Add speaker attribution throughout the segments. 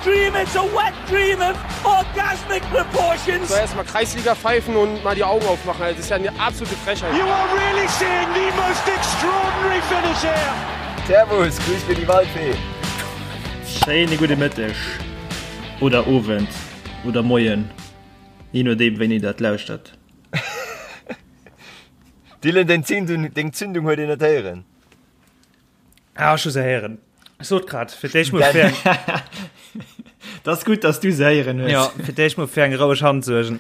Speaker 1: dream, it's a wet dream of orgasmic proportions.
Speaker 2: So erstmal Kreisliga pfeifen und mal die Augen aufmachen. Das ist ja eine absolute Frechheit.
Speaker 1: You are really seeing the most extraordinary finish here.
Speaker 3: Servus, grüß mir die Waldfee.
Speaker 4: Schéine gudde Mëtteg oder Owend oder Moien, je nodeem wéini der et lauschtert.
Speaker 3: Dylan, deng Zündung, deng Zündung huet een net héieren.
Speaker 5: Ah, ech hu se héieren. Ech sot grad, fir d'éischt mol fir eng,
Speaker 4: Dat ass gutt, dass du se héieren hues.
Speaker 5: ja, fir d'éischt mol fir eng roueg Hand suergen.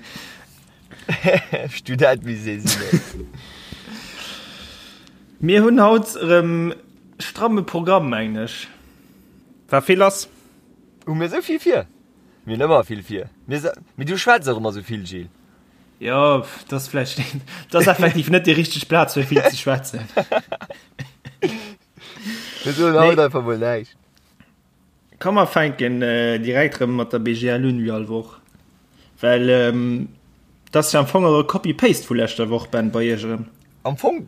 Speaker 3: Student wéi se sinn, ey.
Speaker 4: Mir hunn haut erëm stramme Programm, mengen ech.
Speaker 5: War vill lass.
Speaker 3: Hu mir esou vill vir? Mir hunn ëmmer vill vir. Mir se, mee du schwätz och ëmmer esou vill, Gilles.
Speaker 4: Jo, dat ass vläicht, dat ass effektiv net déi richteg Plaz fir vill ze schwätzen.
Speaker 3: Mir soen haut einfach mol näischt.
Speaker 4: Komm mer fänken direkt erëm mat der BGL un, wéi all Woch. Well dat ass jo am Fong och e Copy-Paste vu leschter Woch, Ben, bei iech erëm.
Speaker 3: Am Fong,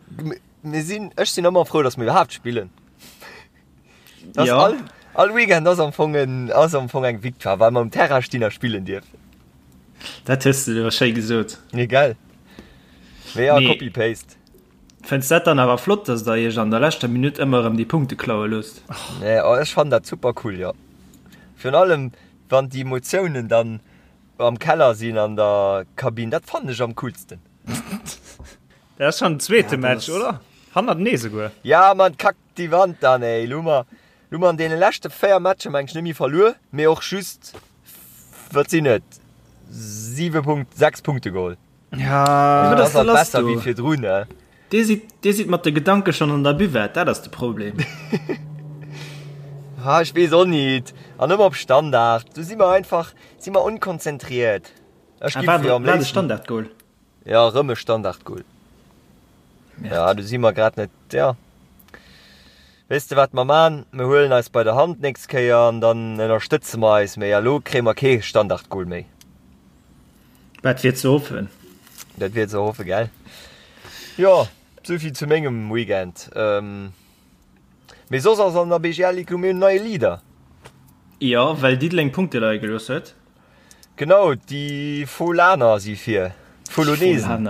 Speaker 3: mir sinn, ech sinn ëmmer frou, datt mir iwwerhaapt spillen. Das
Speaker 4: ja.
Speaker 3: all, all Weekend ass am Fong en, ass am Fong eng Victoire, well mer um Terrain stinn a spillen dierfen.
Speaker 4: Dat hues de awer schéi gesot.
Speaker 3: Nee, gell? Mee ja,
Speaker 4: Nee.
Speaker 3: Copy-Paste.
Speaker 4: Fënns dat dann awer flott, dass der iech an der leschter Minutt ëmmer erëm déi Punkte klaue loosst?
Speaker 3: Nee, oh, ech fannen dat super cool, jo. Virun allem, wann déi Emotiounen dann am Keller sinn an der Kabinn, dat fannen ech am coolsten.
Speaker 5: Dat ass schon den zweete
Speaker 4: Ja, dat
Speaker 5: Match,
Speaker 4: ass-
Speaker 5: oder? Hannertenee souguer.
Speaker 3: Ja, Mann, kack déi Wand dann, ey. Lo hu mer, lo hu mer an deene leschte 4 Matcher, meng ech, net méi verluer, mee och just, wat sinn et, 7 Punkt, 6 Punkte geholl.
Speaker 5: Ja,
Speaker 3: Also,
Speaker 4: wat
Speaker 3: dat
Speaker 4: ass
Speaker 3: ass
Speaker 4: da
Speaker 3: halt
Speaker 4: lass
Speaker 3: besser
Speaker 4: do?
Speaker 3: wéi virdrun, ne?
Speaker 4: Dir sidd, dir sidd mat de Gedanke schonn an der Buvette, dat ass de Problem.
Speaker 3: Ah, ech weess och nit. An ëmmer op Standard. Do si mer einfach, si mer onkonzentriert. Ech
Speaker 4: Ah,
Speaker 3: gi
Speaker 4: war,
Speaker 3: fir am
Speaker 4: war de
Speaker 3: léifsten.
Speaker 4: Standardgoal?
Speaker 3: Ja, erëm e Standardgoal. Ja, do si mer grad net, ja. Weess de wat mer man? Mer huelen eis bei der Hand d'nächst Kéier an dann ënnerstëtze mer eis méi. A lo kréie mer kee Standardgoal méi.
Speaker 4: Dat wier ze hoffen.
Speaker 3: Dat wier ze hoffe, gell? Jo, souvill zu mengem Weekend. Mee soss ass an der BGL Ligue hu mir en neie Leader.
Speaker 4: Jo, well Diddeleng Punkte leie gelooss huet.
Speaker 3: Genau, déi Folaner si vir. D'Folonesen.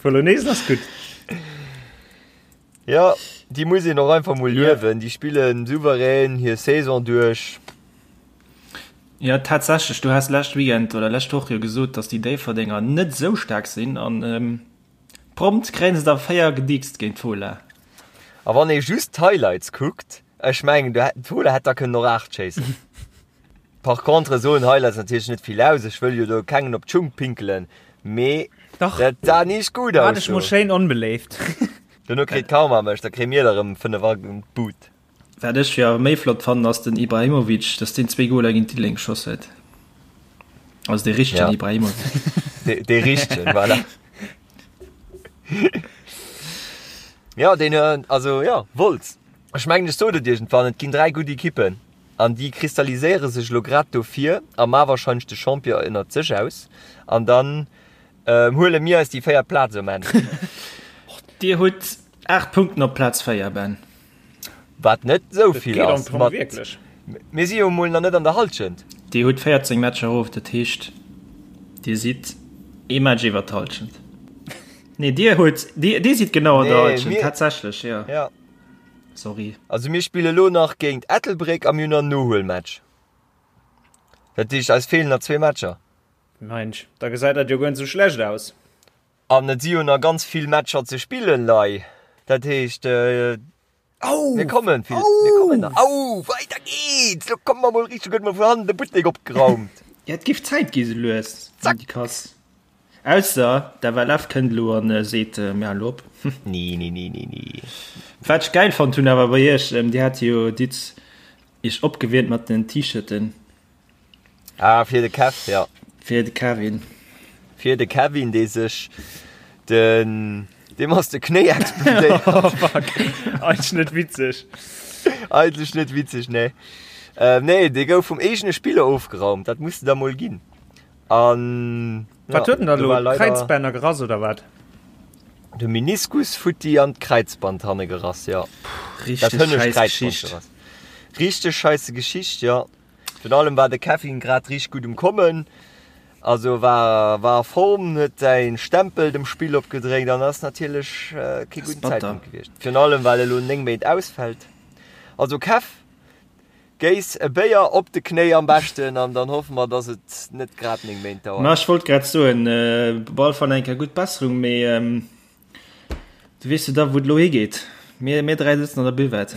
Speaker 5: Folonesen ass gutt.
Speaker 3: Jo, déi muss een och einfach mol luewen. Déi spillen souverän hir Saison duerch.
Speaker 4: Jo, tatsächlech, du has lescht Weekend oder lescht Woch jo gesot, datt déi Déifferdenger net esou staark sinn an prompt kréien se der 4 gedickst géint d'Fola.
Speaker 3: A wann ee just d'Highlights kuckt, ech mengen, d'Fola hätt da kënnen och 8 schéissen. Par contre soen Highlights natierlech net vill aus, ech wëll jo do kengem op d'Schung pinkelen, mee
Speaker 5: Dach,
Speaker 3: dat sah nicht gut
Speaker 5: war
Speaker 3: aus
Speaker 5: dech mol
Speaker 3: do.
Speaker 5: schéin onbeléift.
Speaker 3: Dono kritt Karma mech, da kréie mir der erëm 5 an d'Bud.
Speaker 4: Wat ech jo awer méi flott fannen ass den Ibrahimovic, dass deen zwee Goler géint Diddeleng geschoss huet. Also dee richtegen
Speaker 3: Ja.
Speaker 4: Ibrahimovic.
Speaker 3: Dee, dee richtegen, voilà. Ja, deen, also ja, Wolz. Ech mengen ech sot et iergendwann, et ginn 3 gutt Ekippen. An déi kristalliséiere sech elo grad dofir a ma wahrscheinlech de Champion ënnert sech aus. An dann huele mir eis déi véiert Plaz um Enn.
Speaker 4: Dir hutt 8 Punkten op Plaz 4, Ben.
Speaker 3: Wat net esou vill ass.
Speaker 5: Mat wierklech.
Speaker 3: Mir si jo emol nach net an der Hallschent.
Speaker 4: Dir hutt 14 Matcher of, dat heescht Dir sidd ee Match iwwer d'Hallschent. Nee, Dir hutt, Dir sidd genau an der Hallschent, tatsächlech, jo.
Speaker 3: Ja.
Speaker 4: Sorry.
Speaker 3: Also mir spille lo nach géint Ettelbréck a mir hunn nach en Nohuelmatch. Dat heescht eis feelen nach zwee Matcher.
Speaker 5: Mensch, da gesäit dat jo guer net sou schlecht aus.
Speaker 3: An et si jo nach ganz vill Matcher ze spillen, Lei. Dat heescht, mir kommen vill, mir kommen nach. Au, weider geht's! Lo komme mer mol richteg, huet mer vun hannen de Buttek opgeraumt.
Speaker 4: Ja, et géif Zäit gi sou lues,
Speaker 3: Zack!
Speaker 4: Déi Kass. Ausser d'FLF kënnt elo an seet, mir halen elo op.
Speaker 3: Nee, nee, nee, nee, nee.
Speaker 4: Wat ech gäil fonnt hunn awer bei iech, dir hat jo Ditt iech opgewiermt mat den T-Shirten.
Speaker 3: Ah, fir de Kev, ja.
Speaker 4: Fir de Kevin.
Speaker 3: Fir de Kevin, dee sech den, deem ass de Knéi explodéiert.
Speaker 5: Oh fuck, eigentlech net witzeg.
Speaker 3: Eigentlech net witzeg, nee. Nee, dee gouf vum eegene Spiller ofgeraumt, dat muss de der mol ginn. An
Speaker 5: Wat huet en da
Speaker 3: do
Speaker 5: lo?
Speaker 3: war leider
Speaker 5: Kräizbänner gerass oder wat?
Speaker 3: De Meniskus futti an d'Kräizband hanne gerass, jo. Dat
Speaker 4: Richteg
Speaker 3: hënnescht
Speaker 4: scheiß
Speaker 3: Kräizband
Speaker 4: Geschicht.
Speaker 3: gerass. Richteg scheisse Geschicht, jo. Virun allem war de Kevin grad richteg gutt um Kommen, also war war a Form, huet säi Stempel dem Spill opgedréckt an ass natierlech kee gudden Zäitpunkt gewiescht. Virun allem well e lo 9 Méint ausfält. Also Kev, géiss e Béier op de Knéi am beschten an dann hoffe mer, dass et net grad 9 Méint dauert.
Speaker 4: Ma ech wollt grad soen, op alle Fall eng Kéier gutt Besserung, mee du weess jo da wou et elo higeet. Mir mir 3 sëtzen an der Buvette.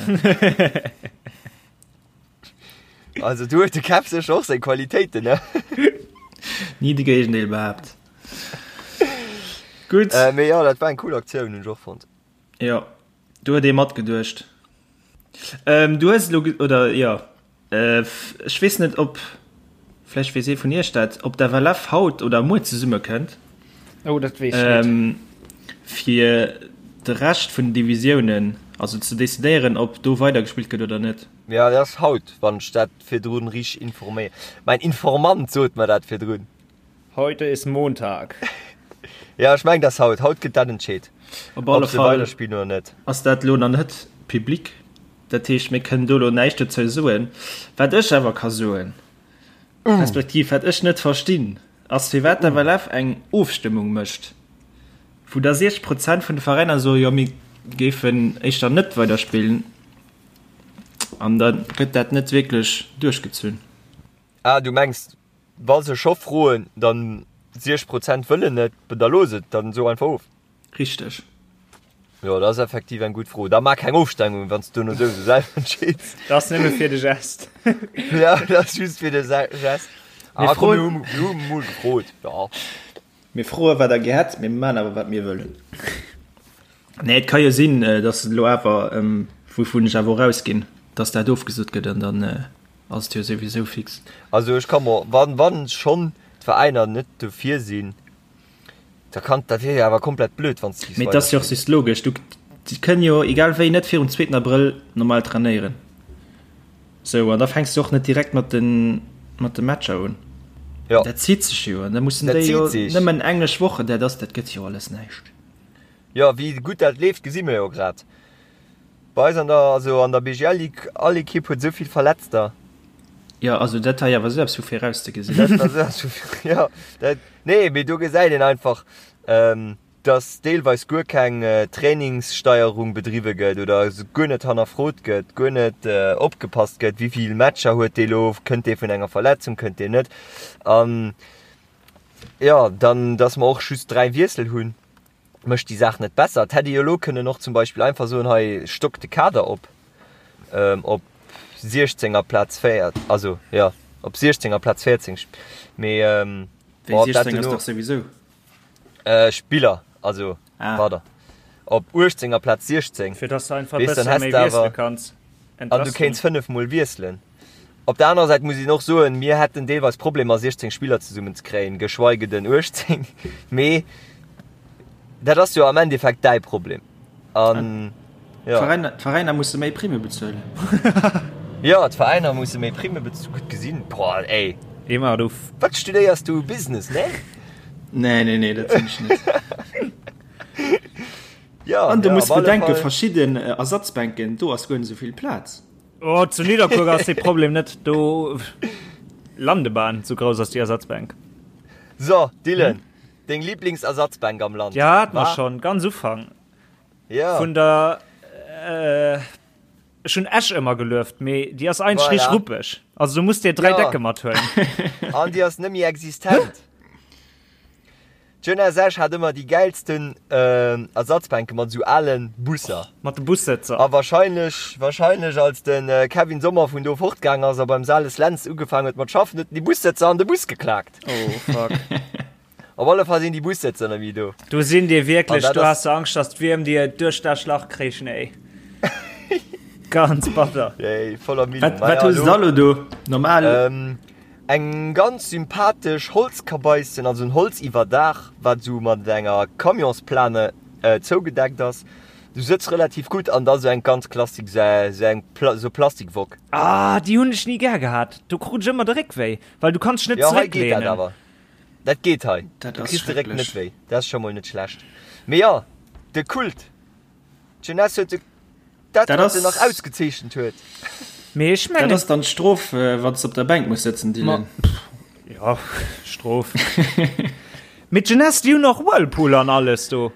Speaker 3: Also du huet de Kev sécher och seng Qualitéiten, ne?
Speaker 4: Ni de Géigendeel behaapt.
Speaker 3: Gutt. Äh, mee jo, dat war eng cool Aktioun, hunn ech och fonnt.
Speaker 4: Jo, do huet ee matgeduecht. Ähm, du hues elo, oder jo, äh, ech weess net, ob, vläicht weess ee vun iech dat, ob d'FLF haut oder muer zesummekënnt.
Speaker 5: Oh, dat weess ech net.
Speaker 4: Ähm, fir de Rescht vun den Divisiounen, also ze decidéieren, ob do weidergespillt gëtt oder net.
Speaker 3: Jo, dat ass haut, wann ech dat virdrun richteg informéier. Mäin Informant sot mer dat virdrun.
Speaker 5: Heute ist Montag.
Speaker 3: Jo, ech mengen, dat ass haut. Haut gëtt dat entscheet,
Speaker 4: Op alle
Speaker 3: ob se
Speaker 4: Fall
Speaker 3: weiderspillen oder net.
Speaker 4: ass dat elo nach net public. Dat heescht, mir kënnen do elo näischt dozou soen. Wat ech awer ka soen, respektiv wat ech net verstinn, ass firwat d'FLF eng Ofstëmmung mécht, wou da 60 Prozent vun de Veräiner soen, jo mir géifen éischter net weiderspillen, an da gëtt dat net wierklech duerchgezunn.
Speaker 3: Ah, du mengs, wa se scho froen, dann 60 Prozent wëllen net, da looss et, dann so einfach of.
Speaker 4: Richteg.
Speaker 3: Jo, dat ass effektiv eng gutt Fro. Da maach keng Ofstemmung, wann s du duerno souwisou selwer entscheeds.
Speaker 5: Dat ass nëmme fir de Gest.
Speaker 3: Ja, dat ass just fir de Gest.
Speaker 4: Mir
Speaker 3: Ah, komm,
Speaker 4: froen-
Speaker 3: mir hu, mir hu mol gefrot. Ja.
Speaker 4: Mir froe wat der gär hätt, mir maachen awer wat mir wëllen. Nee, et ka jo sinn, datt et elo awer, wouvun ech awer och ausginn, datt dat ofgesot gëtt an dann ass et jo souwisou fix.
Speaker 3: Also ech ka mer, wann, wann schonn d'Veräiner net dofir sinn, Da kann, dat wier jo awer komplett blöd, wann s
Speaker 4: de Mee et ass jo och just logesch, du, si kënnen jo egal wéi net virum zweeten Abrëll normal trainéieren. Sou, an da fänks du och net direkt mat de, mat de Matcher un.
Speaker 3: Jo.
Speaker 4: Dat zitt sech jo, an da mussen
Speaker 3: Dat
Speaker 4: déi jo
Speaker 3: zitt sech.
Speaker 4: nëmmen englesch Wochen, dat ass, dat gëtt jo alles näischt.
Speaker 3: Jo, wéi gutt dat leeft, gesi mir jo grad. Bei eis an der, also an der BGL Ligue, all Ekipp huet esou vill Verletzter.
Speaker 4: Jo, also dat war jo awer esou eppes vu virauszegesinn.
Speaker 3: Dat war esou eppes vu, jo, dat, nee, mee do gesäit een einfach, dass deelweis guer keng Trainingssteierung bedriwwe gëtt oder guer net hannerfrot gëtt, guer net opgepasst gëtt, wéi vill Matcher huet dee lo, kënnt dee vun enger Verletzung, kënnt deen net. An jo, dann, dass mer och just 3 Wiessel hunn. mécht déi Saach net besser. Et hätt ee jo elo kënnen och zum Beispill einfach soen, hei stock de Kader op op 16 amplaz 4, also jo op 16 amplaz 14, mee
Speaker 4: Wéi 16 ass dach souwisou.
Speaker 3: Spiller, also pardon, op 18 amplaz 16.
Speaker 5: Fir dass de einfach e bësse méi wiessele kanns.
Speaker 3: An du kéints 5 mol wiesselen. Op der anerer Säit muss een och soen, mir hätten deelweis Problemer 16 Spiller zesummen ze kréien, geschweige den 18. Mee dat ass jo am Endeffekt däi Problem. An
Speaker 4: jo. D'Veräiner musse méi Primme bezuelen.
Speaker 3: Jo, d'Veräiner musse méi Primme bezuelen. Gutt gesinn. Boah, ey.
Speaker 5: Emma, du.
Speaker 3: Wat studéiers du? Business, ne?
Speaker 4: Nee, nee, nee, dat sinn ech net.
Speaker 3: Jo,
Speaker 4: An du
Speaker 3: jo,
Speaker 4: muss
Speaker 3: op alle
Speaker 4: bedenken,
Speaker 3: Fall.
Speaker 4: verschidden Ersatzbänken, do ass guer net esou vill Plaz.
Speaker 5: Oh, zu Nidderkuer ass dee Problem net do. Landebahn, sou grouss ass déi Ersatzbänk.
Speaker 3: So, Dylan, deng Lieblingsersatzbänk am Land?
Speaker 5: Ja, hat mer
Speaker 3: War?
Speaker 5: schon ganz Ufank
Speaker 3: Ja.
Speaker 5: vun der äh, ech hunn Esch ëmmer gelueft, mee déi ass eigentlech
Speaker 3: Voilà.
Speaker 5: richteg ruppeg. Also du muss dir 3
Speaker 3: Ja.
Speaker 5: Decke mathuelen.
Speaker 3: An déi ass net méi existent. D'Jeunesse Esch hat ëmmer déi gäilsten Ersatzbänke mat esou alen Busser.
Speaker 5: Mat de Bussëtzer.
Speaker 3: A wahrscheinlech, wahrscheinlech als de Kevin Sommer vun do fortgaang ass a beim Sales Lentz ugefaang huet mat schaffen, huet en déi Bussëtzer an de Bus geklaakt.
Speaker 5: Oh fuck.
Speaker 3: Op alle Fall sinn déi Bussëtzer net méi do.
Speaker 5: Do sinn dir wierklech,
Speaker 3: An dat
Speaker 5: do
Speaker 3: ass.
Speaker 5: has de Angscht, dass d'Wierm dir duerch dat Schlach kréichen, ey. Ganz batter.
Speaker 3: Ey, voller Millen.
Speaker 4: Wat, wat hues de da lo do? Normal?
Speaker 3: Eng ganz sympathesch Holzkabaissen, also en Holziwwerdaach, wat esou mat enger Camionsplane zougedeckt ass. Du sëtz relativ gutt an da sou eng ganz klassik, sou eng sou Plastikwock.
Speaker 5: Ah, déi hunn ech ni gär gehat. Do krut ech ëmmer de Réck wéi, well du kanns dech net
Speaker 3: Jo, hei geet dat
Speaker 5: zerécklehnen.
Speaker 3: awer. Dat geet hei.
Speaker 4: Dat
Speaker 3: Du
Speaker 4: ass
Speaker 3: kriss de Réck net
Speaker 4: schrecklech.
Speaker 3: wéi. Dat ass scho mol net schlecht. Mee jo, de Kult. D'Jeunesse huet de, dat,
Speaker 4: Dat
Speaker 3: wat se nach
Speaker 4: ass.
Speaker 3: ausgezeechent huet.
Speaker 5: Mee ech
Speaker 4: mengen. Dat ass dann d'Strof, wann s de op der Bänk muss sëtzen, Dylan.
Speaker 5: Jo, Strof. Mee d'Jeunesse, déi hunn och Whirlpool an alles do.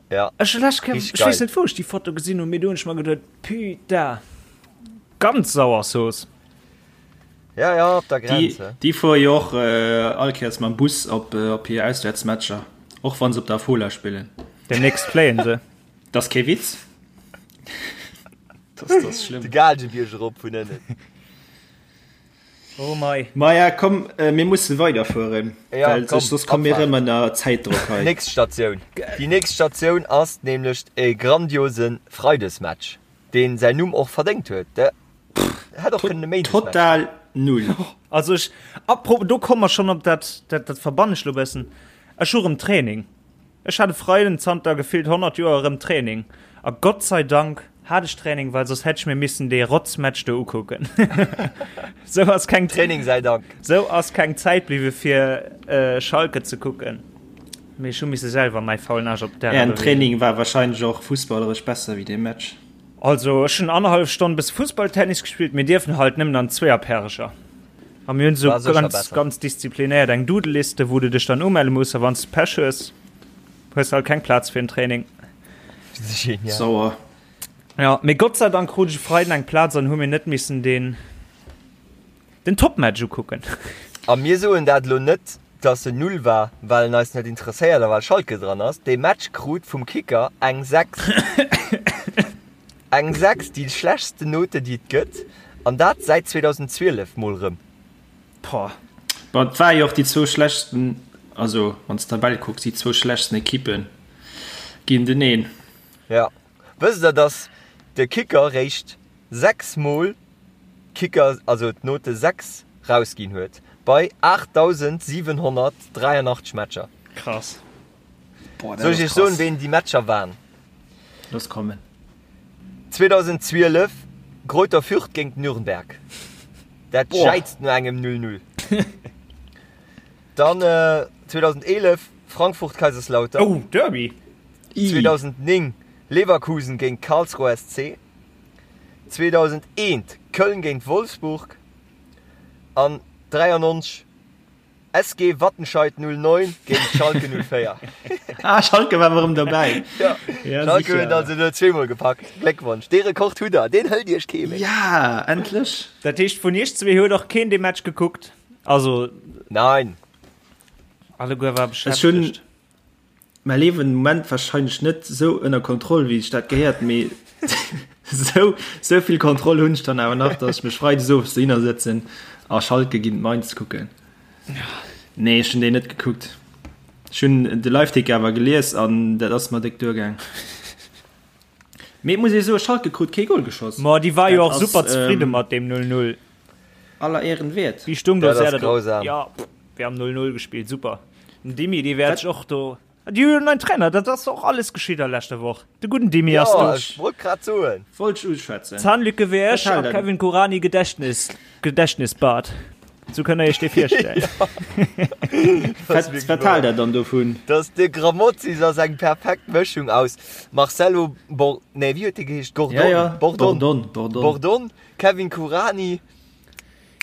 Speaker 3: Ja.
Speaker 5: Ech hu lech, ech weess net, wou ech déi Foto gesinn hunn, mee do hunn ech mer geduet, Putain, ganz sauer Zooss.
Speaker 3: Ja, ja, op der Grenz.
Speaker 4: Déi, déi fuere jo och all Kéiers mam Bus op, op hir Auswäertsmatcher, och wa se op der Fola spillen.
Speaker 5: Demnächst fléien se.
Speaker 4: Dat ass kee Witz.
Speaker 3: Dat ass schlëmm. De Gaalgebierg erop vun ënnen.
Speaker 5: Oh mei.
Speaker 4: Maja, komm, mir musse weiderfueren,
Speaker 3: Ja,
Speaker 4: well
Speaker 3: komm,
Speaker 4: soss komme mir
Speaker 3: Abfahrt.
Speaker 4: erëm ënner Zäitdrock hei.
Speaker 3: Nächst Statioun. Déi nächst Statioun ass nämlech e grandiose Freidesmatch, deen säin Numm och verdéngt huet. De hätt och kënnen e Méindesmatch sinn.
Speaker 4: Total null.
Speaker 5: Also ech, apropos, do komme mer schonn op dat, dat, dat verbannen ech lo bëssen. Ech hu rëm Training. Ech hat e Freiden zanter gefillt 100 Joer erëm Training a Gott sei Dank hat ech Training, well soss hätt ech mir missen dee Rotzmatch do ukucken. Sou ass keng
Speaker 3: Training sei Dank.
Speaker 5: Sou ass keng Zäit bliwwe fir Schalke ze kucken, mee ech hu misse selwer mäi faulen Aarsch op
Speaker 4: d'Ärer Ären Training war wahrscheinlech och fussballeresch besser wéi dee Match.
Speaker 5: Also ech hunn annerhallef Stonn bësse Fussballtennis gespillt, mir dierfen halt nëmmen an Zweeërpärecher. A mir hunn esou ganz, ganz disziplinéiert eng Doodle-Liste, wou du dech dann umelle muss a wann s de Pech hues, hues de halt keng Plaz fir en Training.
Speaker 3: Genial.
Speaker 4: Sauer.
Speaker 5: Ja, mee Gott sei Dank krut ech e Freiden eng Plaz an hu mir net missen deen, den Topmatch ukucken.
Speaker 3: A mir soen dat elo net, dass en null war, well en eis net interesséiert a well Schalke dran ass. Dee Match krut vum Kicker eng 6. Eng 6, déi schlechtsten Note déi et gëtt, an dat säit 2012 mol rëm.
Speaker 5: Poah.
Speaker 4: Bon, et war jo och déi zwou schlechtsten, also wann s d'Tabell kucks, déi zwou schlechtsten Ekippe géinteneen.
Speaker 3: Jo. Wësst der, dass de Kicker réischt 6 mol Kicker, also d'Note 6 rausginn huet, bei 8.783 Matcher?
Speaker 5: Krass.
Speaker 4: Boah,
Speaker 3: Soll ech iech soen, ween déi Matcher waren?
Speaker 4: Looss kommen.
Speaker 3: 2012, Greuther Fürth géint Nürnberg. Dat jäizt no engem 0-0. Dann 2011, Frankfurt-Kaiserslautern.
Speaker 5: Oh, Derby!
Speaker 3: 2009, Leverkusen géint Karlsruher SC. 2001, Köln géint Wolfsburg. An 93, SG Wattenscheid 09 géint Schalke 04.
Speaker 4: Ah, Schalke war erëm dobäi.
Speaker 3: Ja,
Speaker 4: Ja,
Speaker 3: Schalke
Speaker 4: sicher.
Speaker 3: huet also elo zweemol gepackt. Gléckwonsch, dee Rekord hutt der, deen hëlt iech kee méi.
Speaker 4: Ja, endlech.
Speaker 5: Dat heescht, vun iech zwee huet och keen dee Match gekuckt? Also.
Speaker 3: Nein.
Speaker 5: Alleguer war
Speaker 4: Ech hunn
Speaker 5: beschäftegt.
Speaker 4: Mäi Liewen den Moment wahrscheinlech net sou ënner Kontroll wéi sech dat gehéiert, mee sou sou vill Kontroll hunn ech dann awer nach, dass ech mech freides owes dohinner sëtzen a Schalke géint Mainz kucken. Nee, ech hunn déi net gekuckt. Ech hunn de Liveticker awer gelies an dat ass mer déck duergaang. Mee et muss ee soen, Schalke krut kee Goal geschoss.
Speaker 5: Ma déi war jo
Speaker 4: Dat
Speaker 5: och
Speaker 4: ass
Speaker 5: super zefridde mat deem 0-0.
Speaker 4: aller Ehren wäert.
Speaker 5: Wéi stung do
Speaker 3: Dat ass
Speaker 5: Serda do?
Speaker 3: grausam.
Speaker 5: Ja, pff, wir haben 0-0 gespielt, super. Den Dimi, dee wäert sech och do. Déi hu jo en neien Trainer, dat ass och alles geschitt a leschter Woch. De gudden Dimi ass
Speaker 3: Jo,
Speaker 5: do.
Speaker 3: ech wollt grad soen.
Speaker 4: Wollt ech uschwätzen.
Speaker 5: Zahnlücke wéi
Speaker 4: Wat
Speaker 5: ech
Speaker 4: hält
Speaker 5: a
Speaker 4: der?
Speaker 5: Kevin Kuranyi Gedächtnis, Gedächtnisbart. Sou kënnt der iech dee virstellen.
Speaker 3: Dat ass
Speaker 4: Wat,
Speaker 3: wierklech
Speaker 4: wat
Speaker 3: wahr.
Speaker 4: haalt der dann dovun?
Speaker 3: Dass de Grammozis ass eng perfekt Mëschung aus Marcelo Bor, nee, wéi huet dee geheescht? Gordon,
Speaker 4: Ja, ja,
Speaker 3: Bordon,
Speaker 4: Bordon, Bordon.
Speaker 3: Bordon, Kevin Kuranyi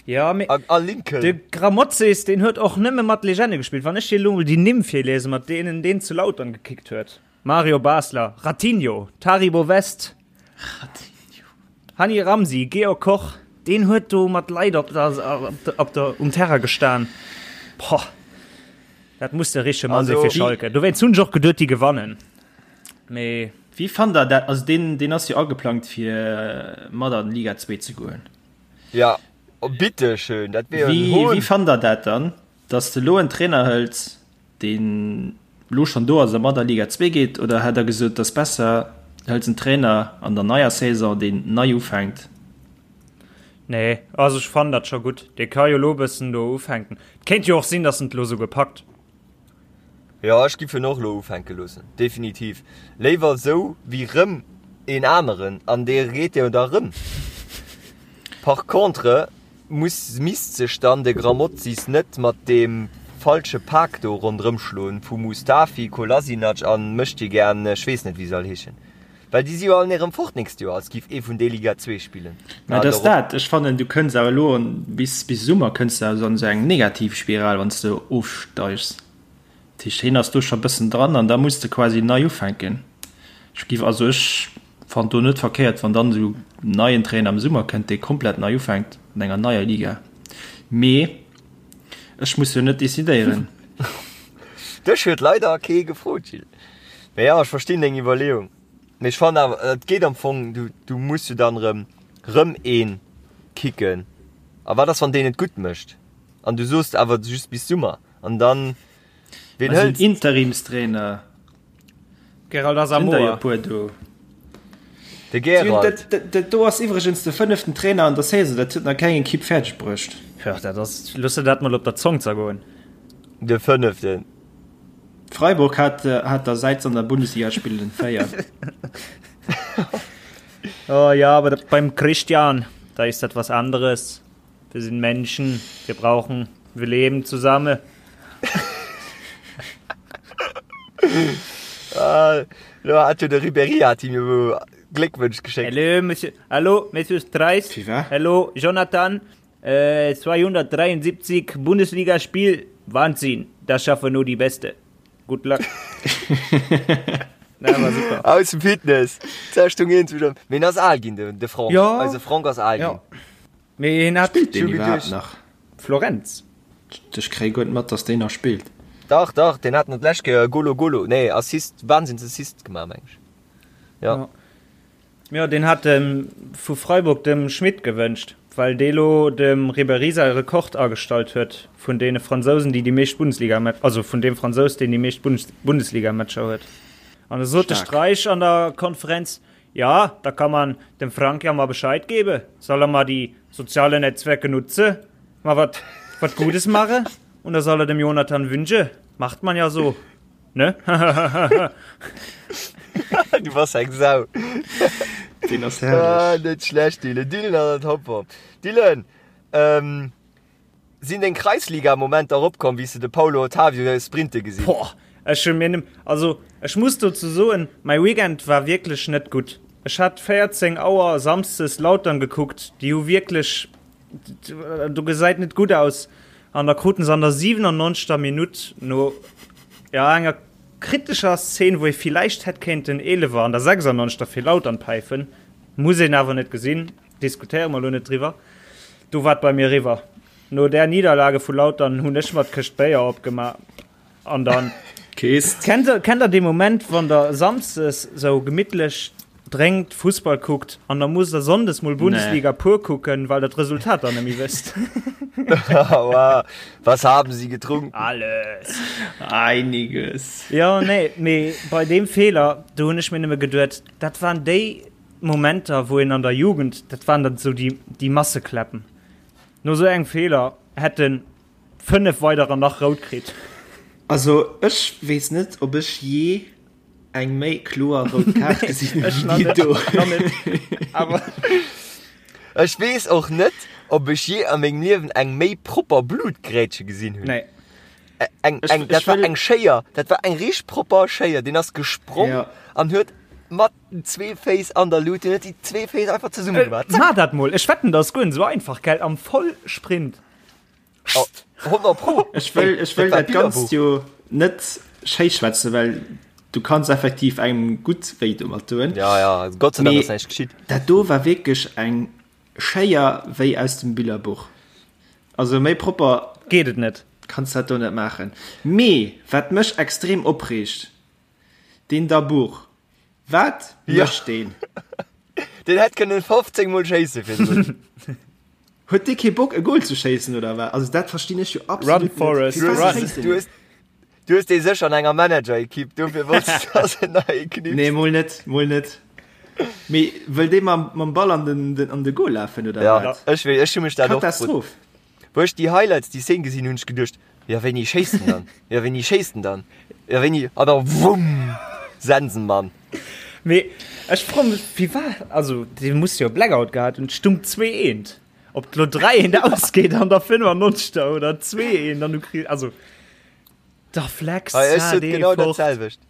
Speaker 5: Ja, mee
Speaker 3: a, a Lincoln.
Speaker 5: de Grammozis, deen huet och nëmme mat Legende gespillt. Wann ech dir elo mol déi Nimm virliesen, mat deenen deen zu Lautern gekickt huet, Mario Basler, Ratinho, Taribo West,
Speaker 4: Ratinho.
Speaker 5: Hani Ramzi, Georg Koch, deen huet do mat Leit op der, op der, op der, um Terrain gestan. Boah, dat muss de richtege Mann si
Speaker 3: Also,
Speaker 5: fir Schalke. Dowéinst hunn ech och geduet, déi gewannen. Mee.
Speaker 4: Wéi fannt der dat? Also deen, deen ass jo ageplangt fir mat an Liga 2 ze goen.
Speaker 3: Ja, oh, bitte schön, dat wier jo en
Speaker 4: Wéi,
Speaker 3: Hohn.
Speaker 4: wéi fannt der dat dann, datt s de elo en Trainer hëls, deen elo schonn do ass a mat a Liga 2 geet, oder hätt der gesot, et ass besser, du hëls en Trainer an der neier Saison, deen nei ufänkt?
Speaker 5: Nee, also ech fannen dat scho gutt. Dee ka jo elo e bëssen do ufänken. Et kéint jo och sinn, datt en et elo souguer packt.
Speaker 3: Jo, ech giff en och lo ufänke loossen, definitiv. Léiwer esou wéi rëm een aneren, an dee reet jo da rëm. Par contre muss, misst sech dann de Grammozis net mat deem falsche Pak do ronderëm schloen vu Mustafi, Kolasinac an Möchtegern, ech weess net wéi se all heeschen. Well déi si jo all erëm fort nächst Joer, als giff ee vun déi Liga 2 spillen.
Speaker 4: Mä et ass dat, ech fannen du kënns awer elo bis bis Summer kënns de also an esou eng Negativspiral wann s de ofsteigs. Dat heescht hien ass do scho bëssen dran an da muss de quasi nei ufänken. Ech giff also ech fannen do net verkéiert wann dann esou neien Trainer am Summer kënnt dee komplett nei ufänkt an enger neier Liga. Mee ech muss jo net decidéieren.
Speaker 3: Dech huet leider kee gefrot Gilles. Mee jo, ech verstinn deng Iwwerleeung. Mee ech fannen awer, et geet am Fong, du, du muss jo dann erëm, rëm een kicken. A wat ass, wann deen et gutt mécht? An du soos awer just bis Summer. An dann,
Speaker 4: ween hëls de? Interimstrainer.
Speaker 5: Gerald Asamoah.
Speaker 4: Sinn der jo e puer do.
Speaker 3: De Gerald.
Speaker 4: Dat, dat do ass iwwregens de fënneften Trainer an der Saison. Dat huet nach keng Ekipp fäerdeg bruecht.
Speaker 5: Jo, dat ass, looss der dat mol op der Zong zergoen.
Speaker 3: De fënneften.
Speaker 4: Freiburg hat, hat der säit se an der Bundesliga spillen 4.
Speaker 5: Oh ja, aber beim Christian, da ist das was anderes. Wir sind Menschen, wir brauchen, wir leben zusammen.
Speaker 3: ah, lo hat jo de Ribéry hat him jo Gléckwënsch geschéckt.
Speaker 5: Hallo, Monsieur, hallo, Monsieur Streis. Hallo, Jonathan. 273 Bundesligaspiel, Wahnsinn, das schaffen nur die Beste. Good luck.
Speaker 3: Na, war super. Aus dem Fitness. Zerschtung eens wieder. Mee en ass al ginn, de, de Franck.
Speaker 5: Ja.
Speaker 3: Eise Franck ass al
Speaker 5: Ja.
Speaker 3: ginn.
Speaker 5: Mee hien hat
Speaker 4: Spillt deen
Speaker 3: Schon
Speaker 4: iwwerhaapt
Speaker 3: geduecht.
Speaker 4: nach?
Speaker 5: Florenz.
Speaker 4: Ech kréie guer net mat, dass deen nach spillt.
Speaker 3: Dach, dach, deen hat nach d'lescht Kéier Golo Golo, nee, Assist, Wahnsinnsassist gemaach, meng ech. Ja.
Speaker 5: Ja. Jo, deen hat dem vu Freiburg dem Schmit gewënscht, well dee lo dem Ribéry säi Rekord agestallt huet vun deene Fransousen, déi déi meescht Bundesliga-Match, also vun deem Fransous, deen déi meescht Bundesliga-Matcher huet. An da sot de Streich an der Konferenz, Ja, da kann man dem Frank ja mal Bescheid gebe, soll er mal die soziale Netzwerke nutze, mal wat, wat Gutes mache und da soll er dem Jonathan wünsche. Macht man ja so. Ne?
Speaker 3: Du bass eng Sau.
Speaker 4: Deen ass
Speaker 3: Ah,
Speaker 4: herrlech.
Speaker 3: net schlecht, Dylan. Dylan an der Topform. Dylan, ähm, sinn deng Kreisliga-Momenter eropkomm, wéi s de de Paulo Otavio sprinte gesinn?
Speaker 5: Boah, ech hu mir nem, also ech muss dozou soen, mäi Weekend war wierklech net gutt. Ech hat 14 Auer Samsdes Lautern gekuckt, déi hu wierklech Do gesäit net gutt aus an da kruten se an der 97. Minutt no ja enger kritescher Szene, wou ee villäicht hätt kéinten Eelewer an der 96. fir Lautern päifen, muss een awer net gesinn, diskutéiere mer elo net driwwer. Do war et bei mir eriwwer. No där Niederlage vu Lautern hunn ech mer d'Këscht Béier opgemaach. An dann
Speaker 4: Kees.
Speaker 5: Kennt der, kennt der dee Moment, wann der Samsdes sou gemittlech drénkt, Fussball kuckt an da musst der Sonndes mol Bundesliga pur kucken, well der d'Resultat dann nemmi wësst?
Speaker 3: Wow, was haben sie getrunken?
Speaker 5: Alles.
Speaker 4: Einiges.
Speaker 5: Jo, nee, mee bei deem Feeler, do hunn ech mir nëmme geduet, dat waren déi Momenter, wou een an der Jugend, dat waren dann sou déi, déi Massekläppen. No sou engem Feeler hätt en 5 weiderer nach rout kritt.
Speaker 4: Also ech weess net ob ech jee eng méi kloer rout Kaart gesinn hunn wéi déi do.
Speaker 3: Ech weess och net ob ech jee a mengem Liewen eng méi propper Blutgrätsche gesinn hunn.
Speaker 5: Nee.
Speaker 3: Eng, eng, dat war eng Schéier, dat war eng richteg propper Schéier. Deen ass gesprong an huet mat den zwee Féiss an der Lut, deen huet déi zwee Féiss einfach zesumme gemaach.
Speaker 5: Zack. Maach dat mol, ech wetten dat ass guer net esou einfach, gell, am Vollsprint.
Speaker 3: Oh, 100 Pro.
Speaker 4: Ech wëll, ech wëll dat Ganzt jo net schéi schwätzen, well du kanns effektiv engem gutt wéi domat doen.
Speaker 3: Ja, ja, Gott sei Dank ass näischt geschitt.
Speaker 4: Dat do war wierklech eng Schéier wéi aus dem Billerbuch. Also méi propper
Speaker 5: geet et net.
Speaker 4: Kanns dat do net maachen. Mee wat mech extrem opreegt, deen Dabour, Wat mécht deen?
Speaker 3: Deen hätt kënnen 15 mol schéisse virdrun.
Speaker 4: Huet dee kee Bock e Goal ze schéissen oder wat? Also dat verstinn ech jo absolut
Speaker 5: net. Run Forrest, run!
Speaker 3: Du hues, du hues dee sécher an enger Manager-Equipe, dofir wolls du dass en nei knipst.
Speaker 4: Nee, mol net, mol net. Mee wëll dee mam, mam Ball an den, den, an de Goal lafen oder
Speaker 3: Ja,
Speaker 4: wat?
Speaker 3: ech wéi, ech hu mech dat och gefrot.
Speaker 4: Katastroph.
Speaker 3: Wou ech déi Highlights, déi Szene gesinn hunn, hunn ech geduecht, jo wéini schéisst en dann? Jo wéini schéisst en dann? Jo wéini? An da wumm! Sensenmann!
Speaker 5: Mee ech froe mech, wéi war, also dee muss jo e Blackout gehat hunn, et stung 2 eent. Ob et lo 3 eent ausgeet an der 95. oder 2 eent an du kriss, also da flex
Speaker 3: Hei, ech sot
Speaker 5: dee
Speaker 3: genau dat
Speaker 5: fort.
Speaker 3: selwecht.